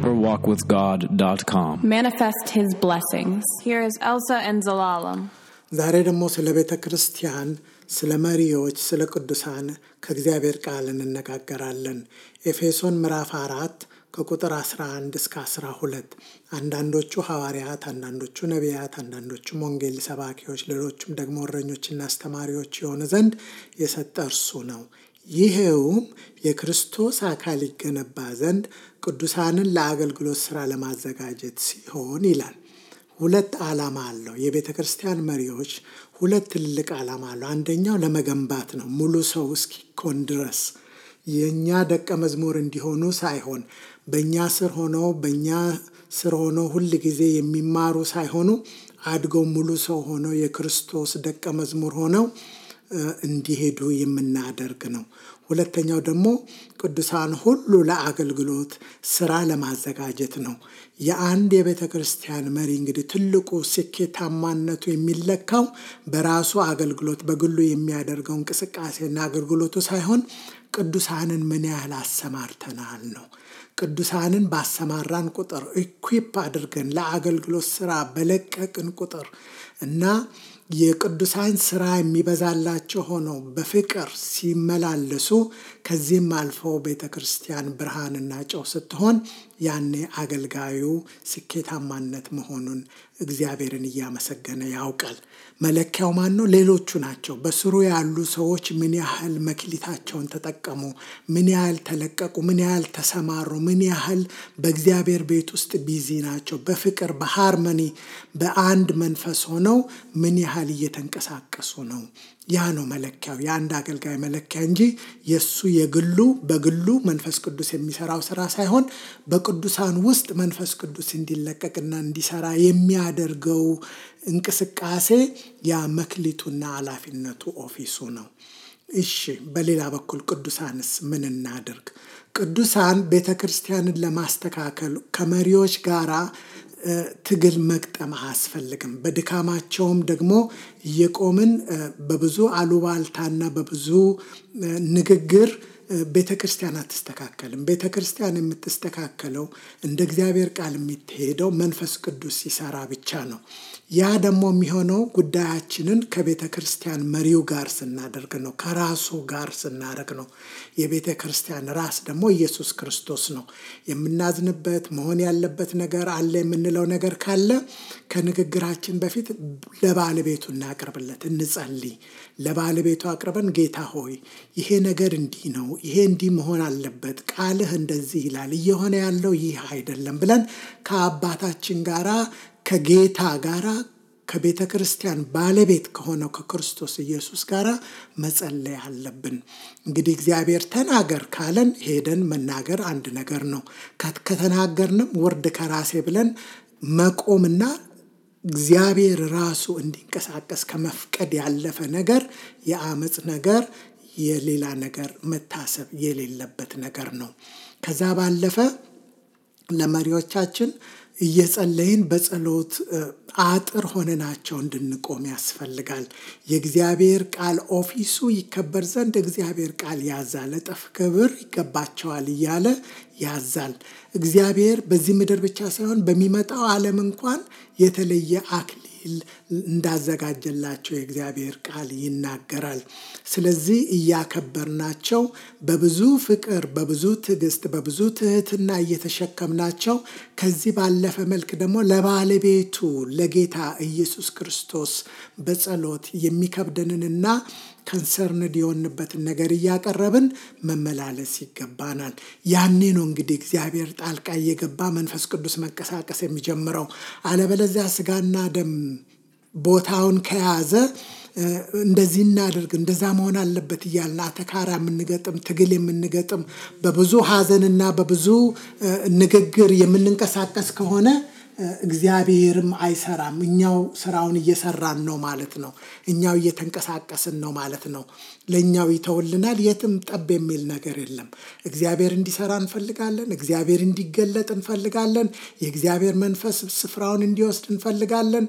deeperwalkwithgod.com. Manifest His blessings. Here is Elsa and Zelalem. ዛሬ ደግሞ ስለ ቤተ ክርስቲያን፣ ስለ መሪዎች፣ ስለ ቅዱሳን ከእግዚአብሔር ቃል እንነጋገራለን። ኤፌሶን ምዕራፍ 4 ከቁጥር 11 እስከ 12 አንዳንዶቹ ሐዋርያት፣ አንዳንዶቹ ነቢያት፣ አንዳንዶቹም ወንጌል ሰባኪዎች፣ ሌሎቹም ደግሞ እረኞችና አስተማሪዎች የሆኑ ዘንድ የሰጠ እርሱ ነው። ይሄውም የክርስቶስ አካል ይገነባ ዘንድ ቅዱሳንን ለአገልግሎት ሥራ ለማዘጋጀት ሲሆን ይላል። ሁለት ዓላማ አለው። የቤተ ክርስቲያን መሪዎች ሁለት ትልቅ ዓላማ አለው። አንደኛው ለመገንባት ነው፣ ሙሉ ሰው እስኪኮን ድረስ የኛ ደቀ መዝሙር እንዲሆኑ ሳይሆን በእኛ ስር ሆነው ሁል ጊዜ የሚማሩ ሳይሆኑ አድገው ሙሉ ሰው ሆነው የክርስቶስ ደቀ መዝሙር ሆነው እንዲሄዱ የምናደርግ ነው። ሁለተኛው ደግሞ ቅዱሳን ሁሉ ለአገልግሎት ስራ ለማዘጋጀት ነው። የአንድ የቤተ ክርስቲያን መሪ እንግዲህ ትልቁ ስኬታማነቱ የሚለካው በራሱ አገልግሎት በግሉ የሚያደርገው እንቅስቃሴና አገልግሎቱ ሳይሆን ቅዱሳንን ምን ያህል አሰማርተናል ነው። ቅዱሳንን ባሰማራን ቁጥር፣ ኢኩዊፕ አድርገን ለአገልግሎት ስራ በለቀቅን ቁጥር እና የቅዱሳን ስራ የሚበዛላቸው ሆነው በፍቅር ሲመላለሱ ከዚህም አልፎ ቤተ ክርስቲያን ብርሃንና ጨው ስትሆን ያኔ አገልጋዩ ስኬታማነት መሆኑን እግዚአብሔርን እያመሰገነ ያውቃል። መለኪያው ማን ነው? ሌሎቹ ናቸው። በስሩ ያሉ ሰዎች ምን ያህል መክሊታቸውን ተጠቀሙ፣ ምን ያህል ተለቀቁ፣ ምን ያህል ተሰማሩ፣ ምን ያህል በእግዚአብሔር ቤት ውስጥ ቢዚ ናቸው፣ በፍቅር በሃርመኒ በአንድ መንፈስ ሆነው ምን ያህል እየተንቀሳቀሱ ነው። ያ ነው መለኪያው፣ የአንድ አገልጋይ መለኪያ እንጂ የሱ በግሉ መንፈስ ቅዱስ የሚሰራው ስራ ሳይሆን በቅዱሳን ውስጥ መንፈስ ቅዱስ እንዲለቀቅና እንዲሰራ የሚያደርገው እንቅስቃሴ ያ መክሊቱና ኃላፊነቱ ኦፊሱ ነው። እሺ፣ በሌላ በኩል ቅዱሳንስ ምን እናድርግ? ቅዱሳን ቤተ ክርስቲያንን ለማስተካከል ከመሪዎች ጋራ ትግል መቅጠም አያስፈልግም። በድካማቸውም ደግሞ እየቆምን በብዙ አሉባልታና በብዙ ንግግር ቤተ ክርስቲያን አትስተካከልም። ቤተ ክርስቲያን የምትስተካከለው እንደ እግዚአብሔር ቃል የምትሄደው መንፈስ ቅዱስ ሲሰራ ብቻ ነው። ያ ደግሞ የሚሆነው ጉዳያችንን ከቤተ ክርስቲያን መሪው ጋር ስናደርግ ነው፣ ከራሱ ጋር ስናደርግ ነው። የቤተ ክርስቲያን ራስ ደግሞ ኢየሱስ ክርስቶስ ነው። የምናዝንበት መሆን ያለበት ነገር አለ የምንለው ነገር ካለ ከንግግራችን በፊት ለባለቤቱ እናቅርብለት፣ እንጸልይ። ለባለቤቱ አቅርበን ጌታ ሆይ ይሄ ነገር እንዲህ ነው፣ ይሄ እንዲህ መሆን አለበት፣ ቃልህ እንደዚህ ይላል፣ እየሆነ ያለው ይህ አይደለም ብለን ከአባታችን ጋራ ከጌታ ጋራ ከቤተ ክርስቲያን ባለቤት ከሆነው ከክርስቶስ ኢየሱስ ጋራ መጸለይ አለብን። እንግዲህ እግዚአብሔር ተናገር ካለን ሄደን መናገር አንድ ነገር ነው። ከተናገርንም ወርድ ከራሴ ብለን መቆምና እግዚአብሔር ራሱ እንዲንቀሳቀስ ከመፍቀድ ያለፈ ነገር የአመጽ ነገር የሌላ ነገር መታሰብ የሌለበት ነገር ነው። ከዛ ባለፈ ለመሪዎቻችን እየጸለይን በጸሎት አጥር ሆነናቸው እንድንቆም ያስፈልጋል። የእግዚአብሔር ቃል ኦፊሱ ይከበር ዘንድ እግዚአብሔር ቃል ያዛል፣ እጥፍ ክብር ይገባቸዋል እያለ ያዛል። እግዚአብሔር በዚህ ምድር ብቻ ሳይሆን በሚመጣው ዓለም እንኳን የተለየ አክሊል እንዳዘጋጀላቸው የእግዚአብሔር ቃል ይናገራል። ስለዚህ እያከበርናቸው በብዙ ፍቅር፣ በብዙ ትዕግስት፣ በብዙ ትህትና እየተሸከምናቸው ከዚህ ባለፈ መልክ ደግሞ ለባለቤቱ ለጌታ ኢየሱስ ክርስቶስ በጸሎት የሚከብደንንና ከንሰርንድ የሆንበትን ነገር እያቀረብን መመላለስ ይገባናል። ያኔ ነው እንግዲህ እግዚአብሔር ጣልቃ እየገባ መንፈስ ቅዱስ መንቀሳቀስ የሚጀምረው። አለበለዚያ ስጋና ደም ቦታውን ከያዘ እንደዚህ እናድርግ እንደዛ መሆን አለበት እያልን አተካራ የምንገጥም ትግል የምንገጥም በብዙ ሐዘንና በብዙ ንግግር የምንንቀሳቀስ ከሆነ እግዚአብሔርም አይሰራም። እኛው ስራውን እየሰራን ነው ማለት ነው። እኛው እየተንቀሳቀስን ነው ማለት ነው። ለእኛው ይተውልናል። የትም ጠብ የሚል ነገር የለም። እግዚአብሔር እንዲሰራ እንፈልጋለን። እግዚአብሔር እንዲገለጥ እንፈልጋለን። የእግዚአብሔር መንፈስ ስፍራውን እንዲወስድ እንፈልጋለን።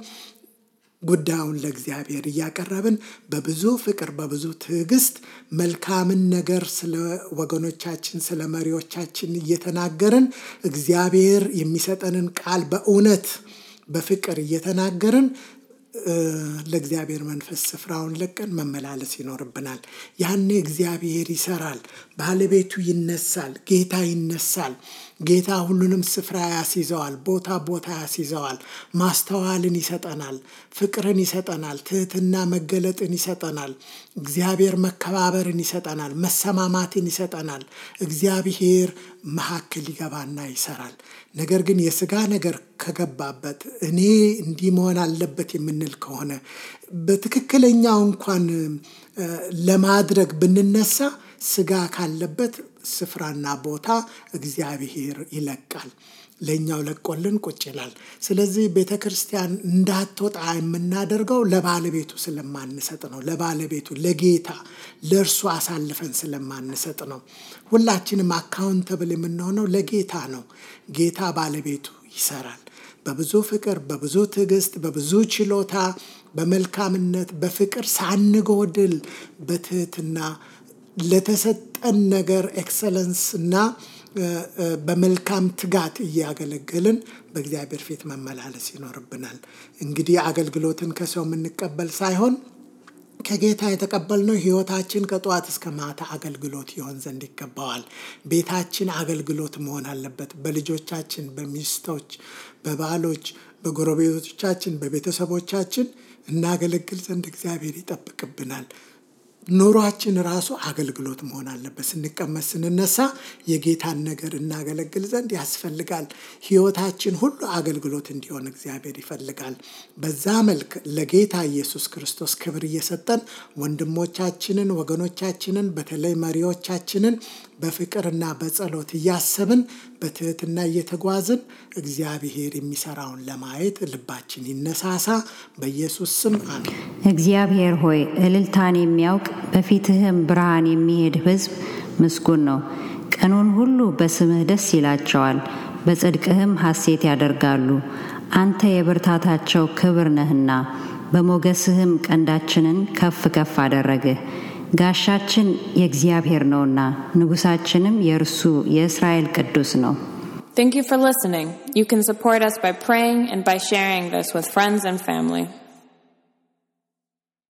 ጉዳዩን ለእግዚአብሔር እያቀረብን በብዙ ፍቅር በብዙ ትዕግስት መልካምን ነገር ስለ ወገኖቻችን ስለ መሪዎቻችን እየተናገርን እግዚአብሔር የሚሰጠንን ቃል በእውነት በፍቅር እየተናገርን ለእግዚአብሔር መንፈስ ስፍራውን ለቀን መመላለስ ይኖርብናል። ያኔ እግዚአብሔር ይሰራል፣ ባለቤቱ ይነሳል፣ ጌታ ይነሳል። ጌታ ሁሉንም ስፍራ ያስይዘዋል፣ ቦታ ያስይዘዋል። ማስተዋልን ይሰጠናል፣ ፍቅርን ይሰጠናል፣ ትህትና መገለጥን ይሰጠናል። እግዚአብሔር መከባበርን ይሰጠናል፣ መሰማማትን ይሰጠናል። እግዚአብሔር መካከል ይገባና ይሰራል። ነገር ግን የሥጋ ነገር ከገባበት እኔ እንዲህ መሆን አለበት የምንል ከሆነ በትክክለኛው እንኳን ለማድረግ ብንነሳ ሥጋ ካለበት ስፍራና ቦታ እግዚአብሔር ይለቃል፣ ለኛው ለቆልን ቁጭ ይላል። ስለዚህ ቤተክርስቲያን እንዳትወጣ የምናደርገው ለባለቤቱ ስለማንሰጥ ነው። ለባለቤቱ ለጌታ ለእርሱ አሳልፈን ስለማንሰጥ ነው። ሁላችንም አካውንተብል የምንሆነው ለጌታ ነው። ጌታ ባለቤቱ ይሰራል። በብዙ ፍቅር በብዙ ትዕግስት በብዙ ችሎታ በመልካምነት በፍቅር ሳንጎድል በትህትና ለተሰጠን ነገር ኤክሰለንስ እና በመልካም ትጋት እያገለገልን በእግዚአብሔር ፊት መመላለስ ይኖርብናል። እንግዲህ አገልግሎትን ከሰው የምንቀበል ሳይሆን ከጌታ የተቀበልነው ሕይወታችን ከጧት እስከ ማታ አገልግሎት ይሆን ዘንድ ይገባዋል። ቤታችን አገልግሎት መሆን አለበት። በልጆቻችን፣ በሚስቶች፣ በባሎች፣ በጎረቤቶቻችን፣ በቤተሰቦቻችን እናገለግል ዘንድ እግዚአብሔር ይጠብቅብናል። ኑሯችን ራሱ አገልግሎት መሆን አለበት። ስንቀመጥ ስንነሳ የጌታን ነገር እናገለግል ዘንድ ያስፈልጋል። ሕይወታችን ሁሉ አገልግሎት እንዲሆን እግዚአብሔር ይፈልጋል። በዛ መልክ ለጌታ ኢየሱስ ክርስቶስ ክብር እየሰጠን ወንድሞቻችንን፣ ወገኖቻችንን በተለይ መሪዎቻችንን በፍቅርና በጸሎት እያሰብን በትህትና እየተጓዝን እግዚአብሔር የሚሰራውን ለማየት ልባችን ይነሳሳ። በኢየሱስ ስም አሜን። እግዚአብሔር ሆይ እልልታን የሚያውቅ በፊትህም ብርሃን የሚሄድ ሕዝብ ምስጉን ነው። ቀኑን ሁሉ በስምህ ደስ ይላቸዋል፣ በጽድቅህም ሐሴት ያደርጋሉ። አንተ የብርታታቸው ክብር ነህና በሞገስህም ቀንዳችንን ከፍ ከፍ አደረግህ። ጋሻችን የእግዚአብሔር ነውና ንጉሳችንም የእርሱ የእስራኤል ቅዱስ ነው። Thank you for listening. You can support us by praying and by sharing this with friends and family.